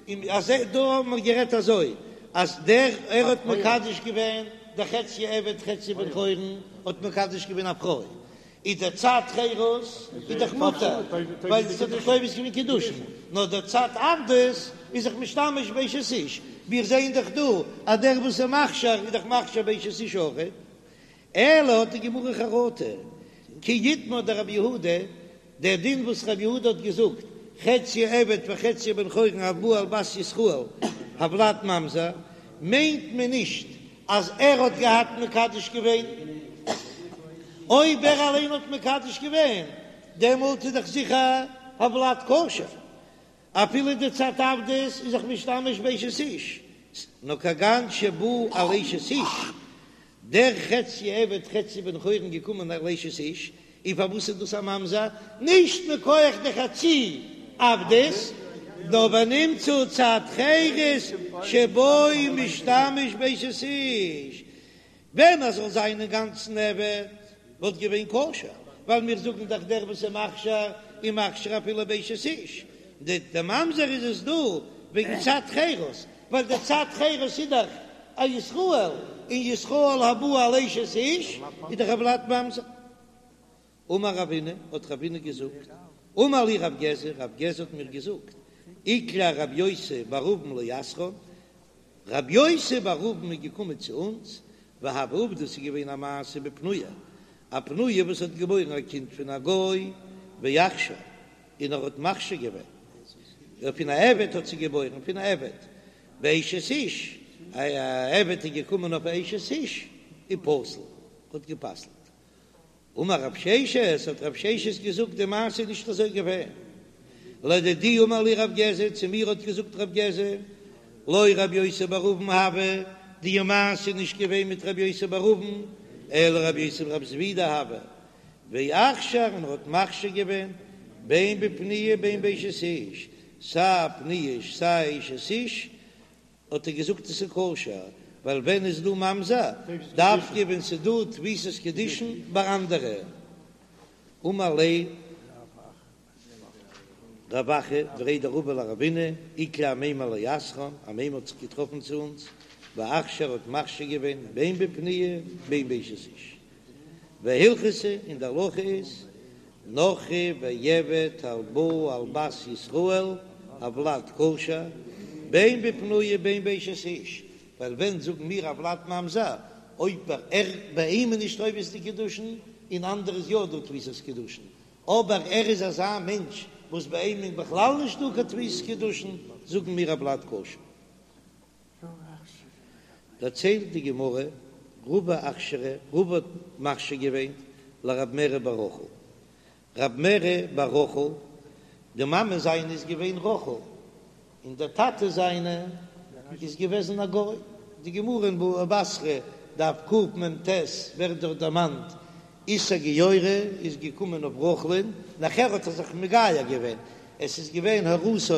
S1: און אז דא האבן מיר גערעדט אזוי אז דער ער האט מקדש געווען דער חציו עבד חציו בן חורין האט מקדש געווען א פרוי איז דער צד חירות איז דאך מותר ווייל עס האט דאך תופס געווען קידושין נאר דער צד עבדות איז זיך משתמש באשת איש מיר זעען דאך דא אז דער וואס איז מכשיר איז דאך מכשיר באשת איש אויכעט אלא האט די גמרא חרטה כי איתמר דרבי יהודה דער דין וואס רבי יהודה האט געזאגט, חציו עבד וחציו בן חורין הבא על בת ישראל הולד ממזר, מיינט מען נישט אז ער האט געהאט מקדש געווען, אויב ער אליין האט מקדש געווען דעמאלט איז דאך זיכער הולד כשר, אפילו די צד עבדות איז זיך משתמש באשת איש, נאר כגון שבא על אשת איש, דער חצי עבד חצי בן חורין געקומען על אשת איש, און פארוואס איז דאס א ממזר? נישט מכח די חצי עבדות, נאר ונמצא צד חירות שבו משתמש באשת איש, ווען ער זאל זיין אינגאנצן עבד וואלט געווען כשר, ווייל מיר זאגן דאך דער וואס איז מכשיר איז מכשיר אפילו באשת איש, די ממזר איז עס דא וועגן צד חירות, ווייל די צד חירות איז דאך א ישראל, און ישראל הבא על אשת איש איז דאך הולד ממזר. אמר רבינא, האט רבינא געזאגט, אמר לי רב גזא, רב גזא האט מיר געזאגט, איקלע רב יוסי בר אבין לאתרין, רב יוסי בר אבין איז געקומען צו אונז, והוה עובדא ס'איז געווען א מעשה בפנויה, א פנויה וואס האט געבוירן א קינד פון א גוי, ואכשר, און ער האט מכשיר געווען, פון א עבד האט זי געבוירן, פון א עבד, באשת איש, א עבד איז געקומען אויף א אשת איש, ופסל, האט גע'פסל'ט. אמר רב ששת, האט רב ששת געזאגט, די מעשה איז נישט אזוי געווען. לדידי אמר לי רב גזא, צו מיר האט געזאגט רב גזא, לא רב יוסי בר אבין הוה, די מעשה איז נישט געווען מיט רב יוסי בר אבין, אלא רב יוסי ברב זבידא הוה, ואכשר און ער האט מכשיר געווען בין בפנויה בין באשת איש, סיי פנויה סיי אשת איש, האט ער געזאגט עס איז כשר, ווייל ווען איז דא ממזר? דווקא ווען ס'איז דא תפיסת קידושין ביי אנדערע. אמר ליה רב אחא בריה דרבא לרבינא, איקלע אמימר לאתרין, אמימר האט זיך געטראפן צו אונז, ואכשר האט מכשיר געווען בין בפנויה בין באשת איש. והלכתא, און די הלכה איז, נכרי ועבד הבא על בת ישראל הולד כשר, בין בפנויה בין באשת איש, ווייל ווען זאגן מיר הולד ממזר, אויב ער ביי אים איז נישט תופס די קידושין, און אנדערע איז יא דא תפיסת קידושין, אבער ער איז אזא מענטש וואס ביי אים איז בכלל נישט דא קיין תפיסת קידושין, זאגן מיר הולד כשר. דערציילט די גמרא, רבא אכשרה, רבא האט מכשיר געווען לרב מרי בר רחל, רב מרי בר רחל, די מאמע זיינע איז געווען רחל, און דער טאטע זיינע איז געוועזן א גוי, די גמרא אין בבא בתרא דף קמ"ט ווערט דארט דערמאנט איסור גיורא איז געקומען אויף רחל'ן, נאכער האט ער זיך מגייר געווען, עס איז געווען הורתו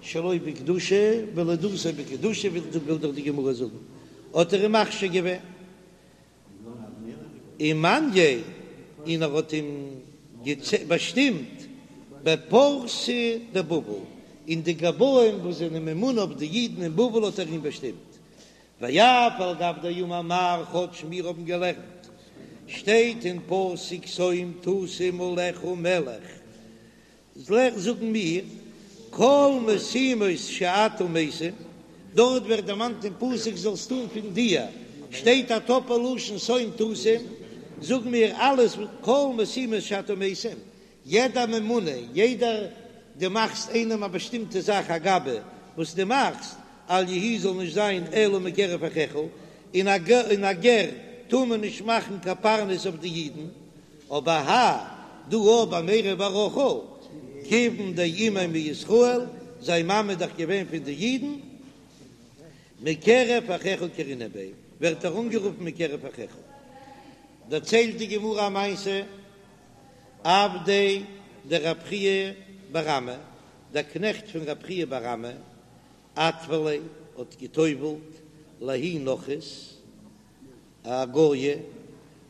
S1: שלא בקדושה ולידתו בקדושה, וויל דאך די גמרא זאגן, האט ער אים מכשיר געווען ומנייה, און ער האט אים באשטימט בפרסי דבבל, אין די גבאים וואס זענען ממונה אויף די אידן אין בבל האט ער אים באשטימט, ואף על גב דאמר מר כאטש מיר האבן געלערנט שטייט אין פסוק שום תשים עליך מלך זאגן מיר. כל משימות שאתה משים, דארט ווערט דערמאנט אין פסוק זאלסט טון פון דיר, שטייט א טאפל לשון שום תשים, זאג מיר אלעס כל משימות שאתה משים, יעדע ממונה, יעדער דו מאכסט איינעם א באשטימטע זאך א גבאי וואס דו מאכסט, אל יהא זאל נישט זיין אלא מקרב אחיך, און א גר טאר מען נישט מאכן קיין פרנס אויף די אידן, אבער האי דא ביי מרי בר רחל, כיוון דאימיה מישראל, זיין מאמע איז דאך געווען פון די אידן, מקרב אחיך קרינן ביה, ווערט ער אנגערופן מקרב אחיך. דערציילט די גמרא א מעשה, עבדיה דרב חייא בר אמי, דער קנעכט פון רב חייא בר אמי, אטבליה האט גע'טובל'ט לההיא נכרית, א גויה,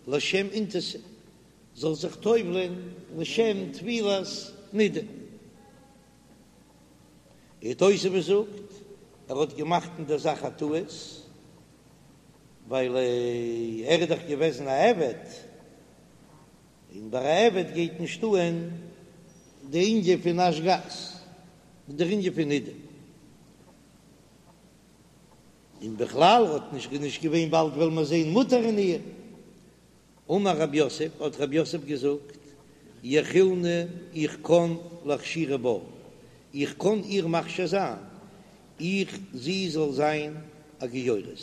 S1: לשם אינתתא, זאל זיך טובל'ען לשם טבילת נידה. און תוספות זאגט, ער האט געמאכט אין דער זאך א טעות, ווייל ער איז דאך געוועזן א עבד, און ביי א עבד גייט נישט אן די ענין פון נשג"ז, דער ענין פון נידה. און בכלל האט נישט נישט געווען באלד וועלן מיר זען מותר אין איר. אמר רב יוסף, האט רב יוסף געזאגט, יכילנא איך קען לאכשורי בה, איך קען איר מכשיר זיין, איך זי זאל זיין א גיורת,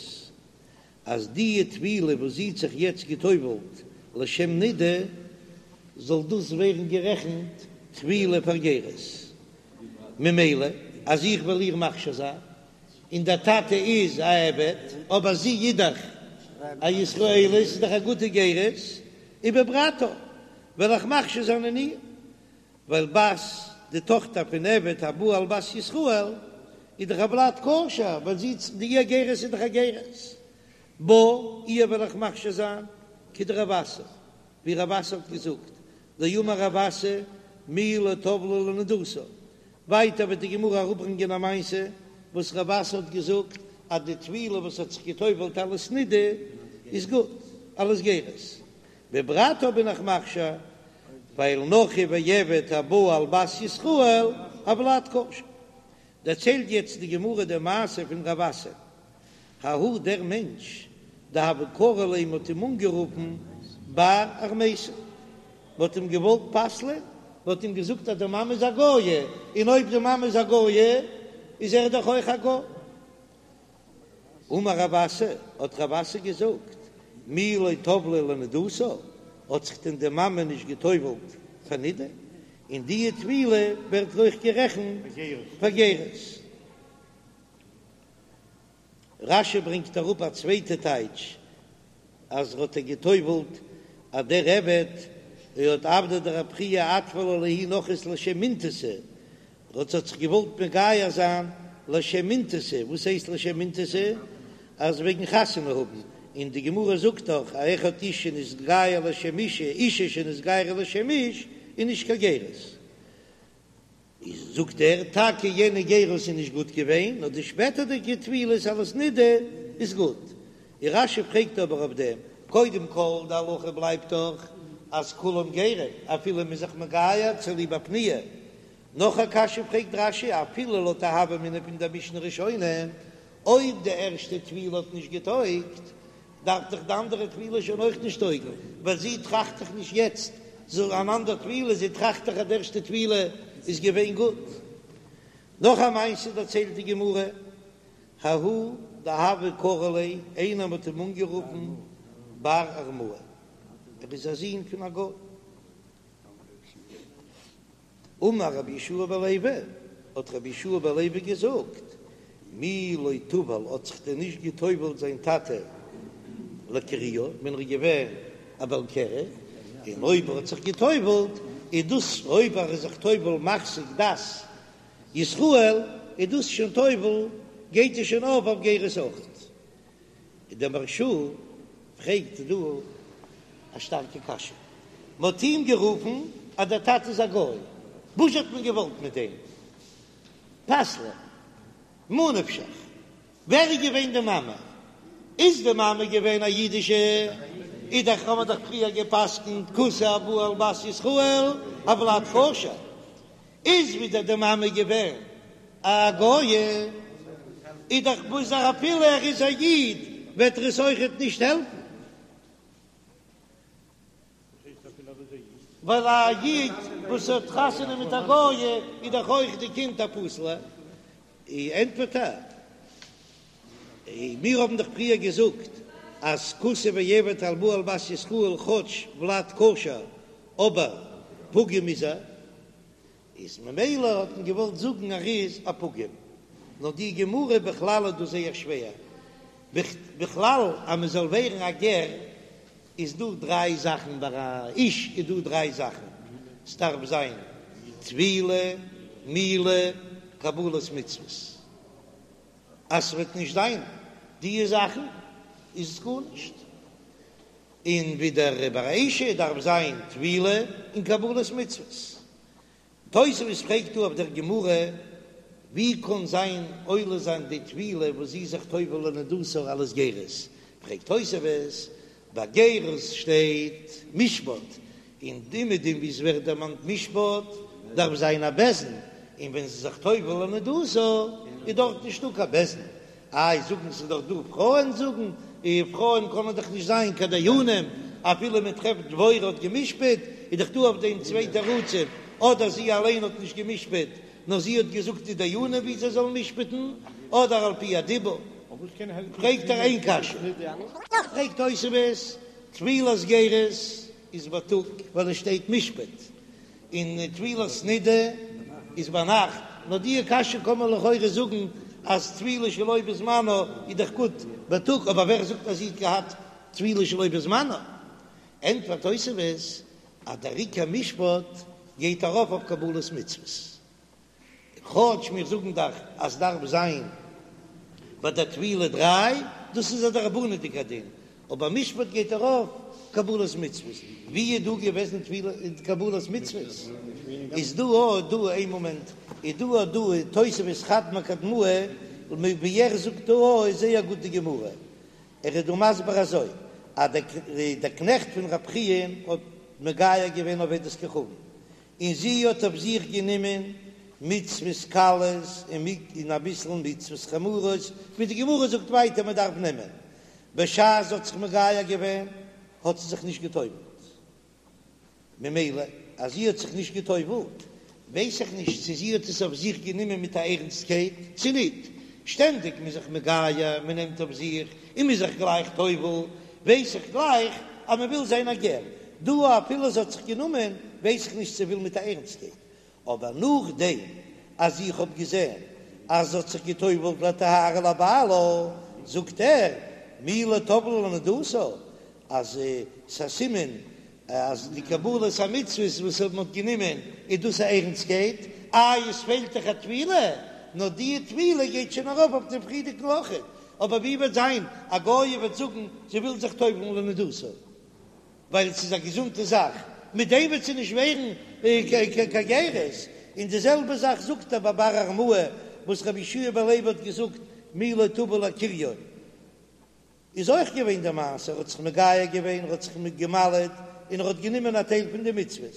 S1: אז די טבילה וואס זי האט זיך יעצט גע'טובל'ט לשם נידה, זאל דאס ווערן גערעכנט טבילה פאר גירות, ממילא אז איך וועל איר מכשיר זיין, און דער טאטע איז א עבד, אבער זי איז דאך א ישראלית, איז דאך א גוטע גירות, ובברתה וועל איך מכשיר זיין אין איר, ווייל בת, די טאכטער פון עבד הבא על בת ישראל, איז דאך א ולד כשר, ווייל זי די איר גירות איז דאך א גירות. בה, איר וועל איך מכשיר זיין, כדרב אסי, ווי רב אסי האט געזאגט, דאמר רב אסי מי לא טבלה לנדתה, ווייטער וועט די גמרא אראפברענגען א מעשה וואס רב אסי האט געזאגט אז די טבילה וואס האט זיך געטובלט אלס נידה איז גוט אלס גירות, בברתה בין איך מכשיר ווייל נכרי ועבד הבא על בת ישראל הולד כשר. דערציילט יעצט די גמרא די מעשה פון רב אסי, ההוא דער מענטש דהוו קרו ליה מ'האט אים אנגערופן בר ארמייתא, מ'האט אים געוואלט פסל'ען, מ'האט אים געזאגט אז די מאמע איז א גויה, און אויב די מאמע איז א גויה איז ער דאך אויך א גוי. אמר רב אסי, האט רב אסי געזאגט, מי לא טבלה לנדתה, האט זיך דען די מאמע נישט גע'טובל'ט פאר נידה, און די טבילה ווערט אויך גערעכנט פאר גירות. רש"י ברענגט אראפ א צווייטע טייטש אז ער האט איר גע'טובל'ט אז דער עבד האט עבדיה דרב חייא אטבלה לההיא נכרית לשם אינתתא, ער האט זיך געוואלט מגייר זיין לשם אינתתא, וואס הייסט לשם אינתתא? אז וועגן חתונה האבן, און די גמרא זאגט דאך אז אחד איש שנתגייר לשם אישה, אישה שנתגיירה לשם איש איז נישט קיין גירות. איז זאגט ער, טאקע יענע גירות איז נישט גוט געווען, נאר די שפעטערדיגע טבילות אלס נידה איז גוט. און רש"י פרעגט אבער אויף דעם, קודם כל די הלכה בלייבט דאך אז כולם גרים, אפילו מ'איז זיך מגייר צוליב א פניה. נאך א קשיא פרעגט רש"י, אפילו לויט די הוה אמינא פון דער משנה ראשונה, אויב די ערשטע טבילה האט נישט געטויגט, דארף דאך די אנדערע טבילה שוין אויך נישט טויגן, ווייל זי טראכט דאך נישט יעצט זאל אן אנדער טבילה, זי טראכט דאך אז די ערשטע טבילה איז געווען גוט. נאך א מעשה דערציילט די גמרא, ההוא דהוו קרו ליה, איינער האט אים אנגערופן בר ארמאי, ער איז א זון פון א גוי. אמר רבי יהושע בן לוי, האט רבי יהושע בן לוי געזאגט, מי לא טבל האט זיך דען נישט געטובלט זיין טאטע לקריו ווען ער איז געווען א בעל קרי, און אויב ער האט זיך געטובלט איז דאס אויב ער איז זיך טובל מחזיק דת ישראל איז דאס שוין טובל גייט עס שוין אויף אויף גירות אויכעט. און דער מהרש"א פרעגט דא א שטארקע קשיא, מען האט אים גערופן אז דער טאטע איז א גוי, וואס האט מען געוואלט מיט דעם פסל'ען? ממה נפשך, ווער איז געווען די מאמע? איז די מאמע געווען א אידישע? איז דאך האבן מיר דאך פריער גע'פסק'נט כותי הבא על בת ישראל הולד כשר, איז ווידער די מאמע געווען. א גויה, איז דאך וואס אפילו ער איז א איד וועט ער עס אויכעט נישט העלפן. ווייל א איד וואס האט חתונה מיט א גויה איז דאך אויך די קינד א פסול'ע. ענטפערט ער, מיר האבן דאך פריער געזאגט אז כותי ועבד הבא על בת ישראל כאטש ולד כשר אבער פגום איז ער, איז ממילא האט מען געוואלט זאגן ער איז א פגום, נאר די גמרא בכלל איז דא זייער שווער, בכלל אז מען זאל ווערן א גר איז דא דריי זאכן, ביי א איש איז דא דריי זאכן, ס'דארף זיין טבילה, מילה, קבלת מצוות, אז ס'וועט נישט זיין דיע זאכן איז עס גארנישט, און ווידער ביי א אשה דארף זיין טבילה און קבלת מצוות. תוספות פרעגט דא אויף דער גמרא, ווי קען זיין עולה זיין די טבילה וואס זי איז זיך טובל לנדתה אלס גירות? פרעגט תוספות, ביי גירות שטייט משפט, און אומעדום ווי עס ווערט דערמאנט משפט דארף זיין א בית דין, און ווען זי איז זיך טובל לנדתה איז דארט נישטא קיין בית דין, איי זאגן ס'איז דאך דא פרויען זאגן, און פרויען קענען דאך נישט זיין קיין דיינים, אפילו מען טרעפט דבורה האט גע'משפט, איז דאך דא אויף דעם צוויי תירוצים, אדער זי אליין האט נישט גע'משפט, נאר זי האט געזאגט די דיינים ווי זיי זאלן משפט'ן, אדער על פי הדיבור. פרעגט ער איין קשיא. פרעגט תוספות, טבילת גירות איז בייטאג ווייל עס שטייט משפט, און טבילת נידה איז ביינאכט, נאר די קשיא קען מען לכאורה זאגן אז טבילה שלא בזמנה איז דאך גוט בייטאג, אבער ווער זאגט אז זי האט געהאט טבילה שלא בזמנה? ענטפערט תוספות אז דער עיקר משפט גייט ארויף אויף קבלת מצוות. כאטש מיר זאגן דאך אז דארף זיין ביי דער טבילה דריי, דאס איז א דרבנן'דיגע דין, אבער משפט גייט ארויף קבלת מצוות, ווי איז דא געוועזן טבילה און קבלת מצוות? איז דא א דא איין מאמענט, איז דא א דא תוספות חד מקדמאי, ווי ער זאגט דא א איז זייער גוט די גמרא, ער איז דא מסביר אזוי, אז דער קנעכט פון רב חייא האט מגייר געווען עובדת כוכבים, און זי האט אויף זיך גענומען מצוות קלות און אביסל מצוות חמורות, ווי די גמרא זאגט ווייטער מען דארף נעמען, בשעת זי האט זיך מגייר געווען האט זי זיך נישט גע'טובל'ט, ממילא אז זי האט זיך נישט גע'טובל'ט ווייס איך נישט צו זי האט עס אויף זיך גענומען מיט א ערנסטקייט צו ניט, שטענדיג מ'איז זיך מגייר, מען נעמט אויף זיך און מ'איז זיך גלייך טובל, ווייס איך גלייך אז מען וויל זיין א גר, דא אפילו זי האט זיך גענומען ווייס איך נישט צו וויל מיט א ערנסטקייט, אבער נאכדעם אז איך האב געזען אז זי האט זיך געטובלט לטהרה לבעלה, זאגט ער מי לא טבלה לנדתה, אז ס'איז א סימן אז די קבלת המצוות וואס מען האט גענומען איז דאס א ערנסטקייט, איי עס פעלט דאך א טבילה, נאר די טבילה גייט שוין ארויף אויף דעם פריערדיגן אויכעט, אבער ווי וועט זיין א גויה וועט זאגן זי וויל זיך טובל'ן לנדתה ווייל ס'איז א געזונטע זאך, מיט דעם וועט זי נישט ווערן קיין גירות, און די זעלבע זאך זאגט ער ביי בר ארמאי וואס רבי יהושע בן לוי האט געזאגט מי לא טבל לכריו. איז אויך געווען די מעשה, ער האט זיך מגייר געווען, ער האט זיך געמל'עט, און ער האט גענומען א טייל פון די מצוות,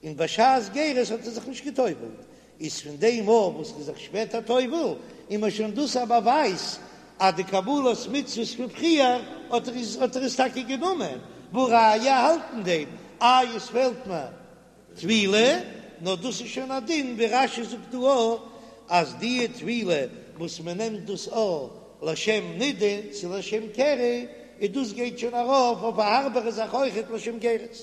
S1: און בשעת גירות האט ער זיך נישט גע'טובל'ט, איז פון דעם מאל וואס ער איז זיך שפעטער טובל, איז מען שוין דאס א באווייז אז די קבלת מצוות פון פריער האט ער האט ער עס טאקע גענומען, והא ראיה האלט אין דעם, איי עס פעלט מיר טבילה, נאר דאס איז שוין א דין ווי רש"י זאגט דא אויך אז די טבילה וואס מען נעמט דאס אויך לשם נידה צו לשם קרי, און דאס גייט שוין ארויף אויף א הארבערע זאך אויכעט לשם גירות.